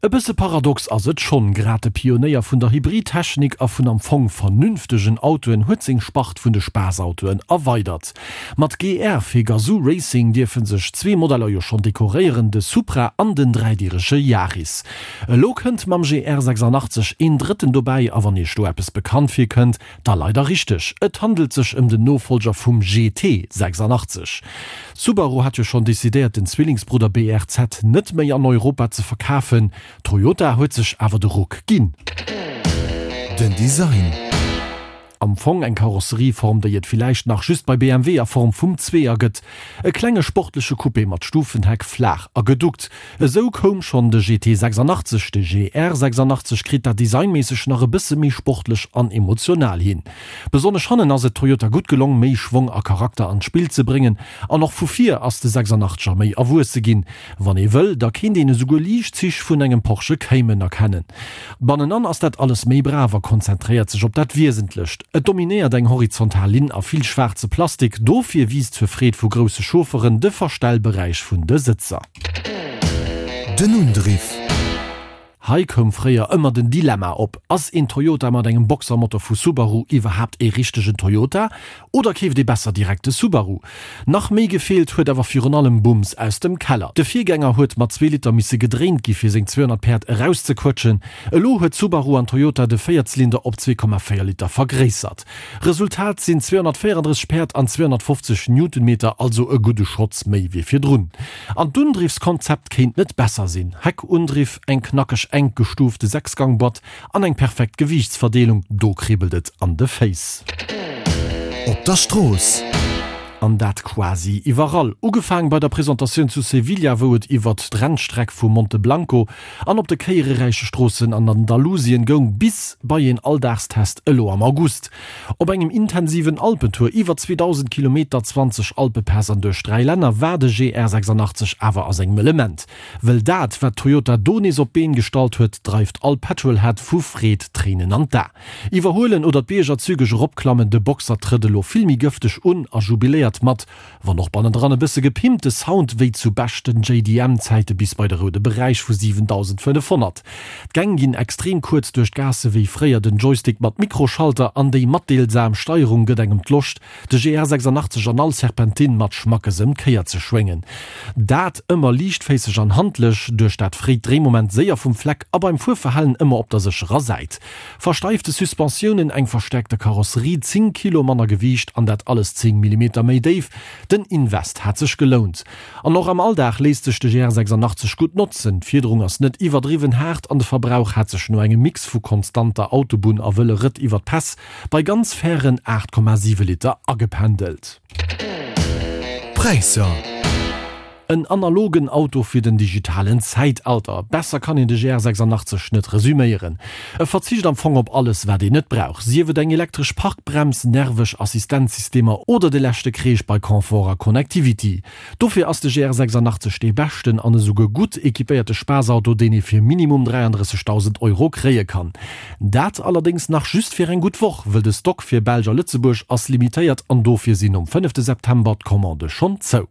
E bësse paradox ass et schonn, grad de Pionéier vun der Hybridtechnik a vun am Fong vernünftegen Autoen huet seng Spart vun de Spaassautoen erweidert. Mat GR fir Gazoo Racing dierfe sech zwee Modeller jo schonn dekoréieren, de Supra an den dräidierege Yaris. Elo kënnt mam GR 86 een drëtten dobäi a wann iech do eppes bekannt virkënnt, Da leider richteg, et handelt sech ëm den Nofolger vum GT 86. Subaru hat jo schonn decidéiert den Zwillingsbrudder BRZ net méi an Europa ze verkafen, Toyota huet sech awer de Ruck ginn. Den Design. Am Fong eng Karosserieform déi et villäicht nach just bei BMW a Form vum Zweeër gëtt. E klenge sportleche Coupé mat Stufenheck, flaach a geduckt. Esou koum schonn de GT 86, de GR 86 kritt dat designméisseg nach e bësse méi sportlech an emotional hin. Besonnesch hannen ass et Toyota gutt gelong méi Schwong a Charakter an d'Spill ze bréngen an och vu vir ass de 86er méi erwuesse ginn. Wann ee wëll, da kéint een esouguer liicht Zich vun engem Porsche Cayman erkennen. Bannenan ass dat alles méi brav a konzentréiert sech op dat Wiesentlecht. Et dominéiert eng horizontal Linn a vill schwaarze Plastik, dofir wiisst zur Freed vu grousse Chaufferen de Verstellberäich vun de Sëtzer. Den Undriff. Hei koum fréier ëmmer den Dilemma op, Ass een Toyota mat engem Boxermotor vu Subaru iwwerhaapt ee richtegen Toyota oder keeft ee besser direkt de Subaru? Nach méi gefeelt huet awer virun allem Bums aus dem Keller. De Virgänger huet mat zwee Liter misse gedréint gi fir seng 200 Päerd erauszequëtschen. Elo huet Subaru an Toyota de Véierzylinder op 2,4 Liter vergréissert. Resultat sinn 234 Päerd an 250 Newtonmeter, also e gudde Schotz méi wéi virdrun. An d'Undriffskonzept kéint net besser sinn, Heckundriff, eng knackeg enk gestuufte Sechsgangboîte an eng perfekt Gewiichtsverdeelung, do kribbelt et an de Féiss. Op der Strooss. An dat quasi iwwerall. Ugefaang bei der Presentatioun zu Sevilla, wou et iwwert d'Rennstreck vu Monte Blanco an op de kéiereräiche Stroossen an Andalusien goung, bis bei een Alldagstest elo am August. Op engem intensiven Alpentour iwwer 2.000 Kilometer, 20 Alpepäss an duerch 3 Länner war de GR 86 awer a sengem Element. Wëll dat, wat Toyota do nees op d'Been gestallt huet, dreift all Petrolhead vu Freed Tréinen an d'A. Iwwerhuelen oder d'Bierger zügeg eropklammen, de Boxer trëtt elo vill méi gëfteg un a jubiléiert mat, wann och bannendran e bësse gepimpt, de Sound wéi zu beschten JDM-Zäite bis bei de roude Beräich vu 7500. D'Gäng ginn extrem kuerz duerch d'Gaasse wéi fréier, den Joystick mat Mikroschalter an déi matdeelsam Steierung gëtt engem d'Loscht, de GR 86 an all Serpentine mat Schmackes ëm d'Kéier ze schwéngen. Dat ëmmer liichtféisseg an handlech, duerch dat fréit Dréimoment séier vum Fleck a beim Fuerverhalen ëmmer op der sécherer Säit. Versteifte Suspensiounen, eng verstäerkte Karosserie, 10 Kilo manner Gewiicht an dat alles 10 Millimeter méi déif, den Invest hat sech gelount. An och am Alldag léisst sech de GR 86 gutt notzen, d'Fiederung ass net iwwerdriwwen haart an de Verbrauch hat sech no engem Mix vu konstanter Autobunn a wëlle Rëtt iwwer d'Päss bei ganz fairen 8,7 Liter agependelt. Präisser. En analogen Auto fir den digitalen Zäitalter. Besser kann een de GR 86 net resüméieren. E verzicht am Fong op alles wat een net brauch, sief et eng elektresch Parkbrems, nerveg Assistenzsystemer oder de leschte Kreesch bei Confort a Connectivity. Dofir ass de GR 86 dee beschten an esouguer gutt equipéierte Spaassauto deen ee fir minimum 33.000 Euro kréie kann. Dat allerdéngs nach just fir eng gutt Woch, wëll de Stock fir Belsch a Lëtzebuerg ass limitéiert an dofir sinn nom fënnefte September d'Commandë schonn zou.